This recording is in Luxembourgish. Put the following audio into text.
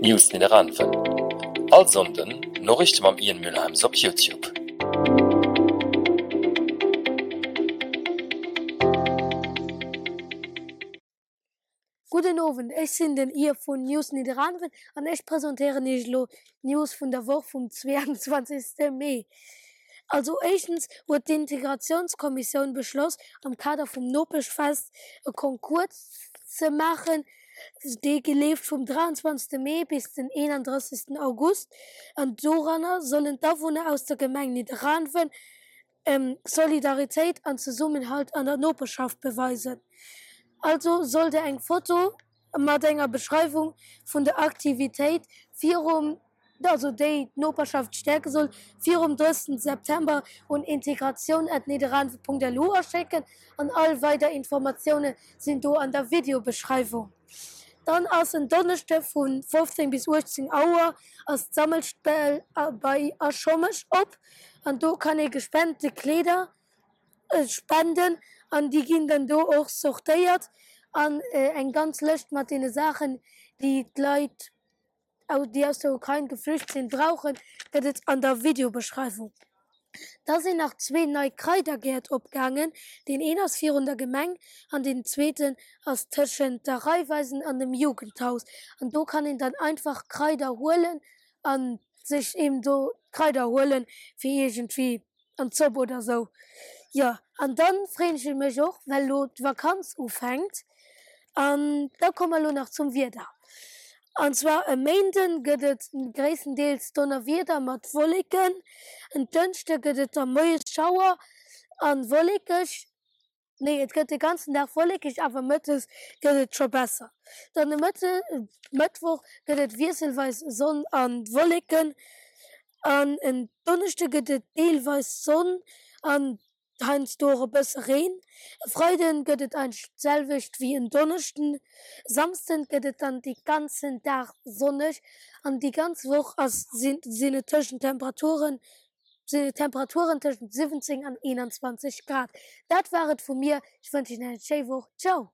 News Nidderaanwen, All Sonnden Noriichte mam Ian Mülheims op Youtube. Gudden Owend, ech sinn den Ian vun News Nidderaanwen an ech presentéieren iech elo d'News vun der Woch vum 22 Mee. Also éischtens huet d'Integratiounskommissioun beschloss, am Kader vum Nopeschfest e Concours ze maachen, Dee leeft vum 23 Mee bis den 31 August an doranner sollen d'Awunner aus der Gemeng Nidderaanwen Solidaritéit an Zesummenhalt an der Noperschaft beweisen. Also sollt der eng Foto mat enger Beschreiwung vun der Aktivitéit virum also déi d'Noperschaft stäerke soll, virum 30 September un integratioun@nidderaanwen.lu aschécken an all weider Informatioune sinn do an der Videobeschreiwung. Dann ass en Donneschde vu 15 bis 18 Auer ass d'Sammelstell bei A Schommesch op an do kann ee gespente Kleeder spenden an déi ginn dann do och sortéiert an eng ganz Lëscht mat deene Saachen déi d'Leit déi aus der Ukrain geflücht sinn, brauchen, gëtt et an der Videobeschreiwung. Da sinn nach zwee nei Kraidergäert opgaangen, deen een ass virun der Gemeng an deen zweeten ass tëschent der Raiffeisen an dem Jugendhaus. An do kann een dann einfach Kraider huelen a sech eben do d'Kraider huelen, fir iergendwéi an d'Zopp oder sou. Jo, an dann freen ech mech och, well lo d'Vakanz ufänkt. An da komme mer lo nach zum Wieder. An zwar e Méinden gëtt et gréisstendeels Donnerwieder mat Wolleken, en Dënschde gëtt et da moies Schauer an wollekeg. Nee, et gëtt de ganzen Dag wollekeg, awer mëttes gëtt et scho besser. Dann de Mëttwoch gëtt et wiesselweis Sonn a Wolleken an en Donneschde gëtt et deelweis Sonn an heiansdo och e bësse Reen. E Freide gëtt et eigentlech d'selwecht wéi en Donneschden. E Samsden gëtt et dann de ganzen Dag sonneg an déi ganz Woch ass sinn et tëschent Temperaturen sinn et Temperaturen tëschent 17 an 21 Grad. Dat war et vu mir, ech wënschen iech eng schéi Woch, ciao!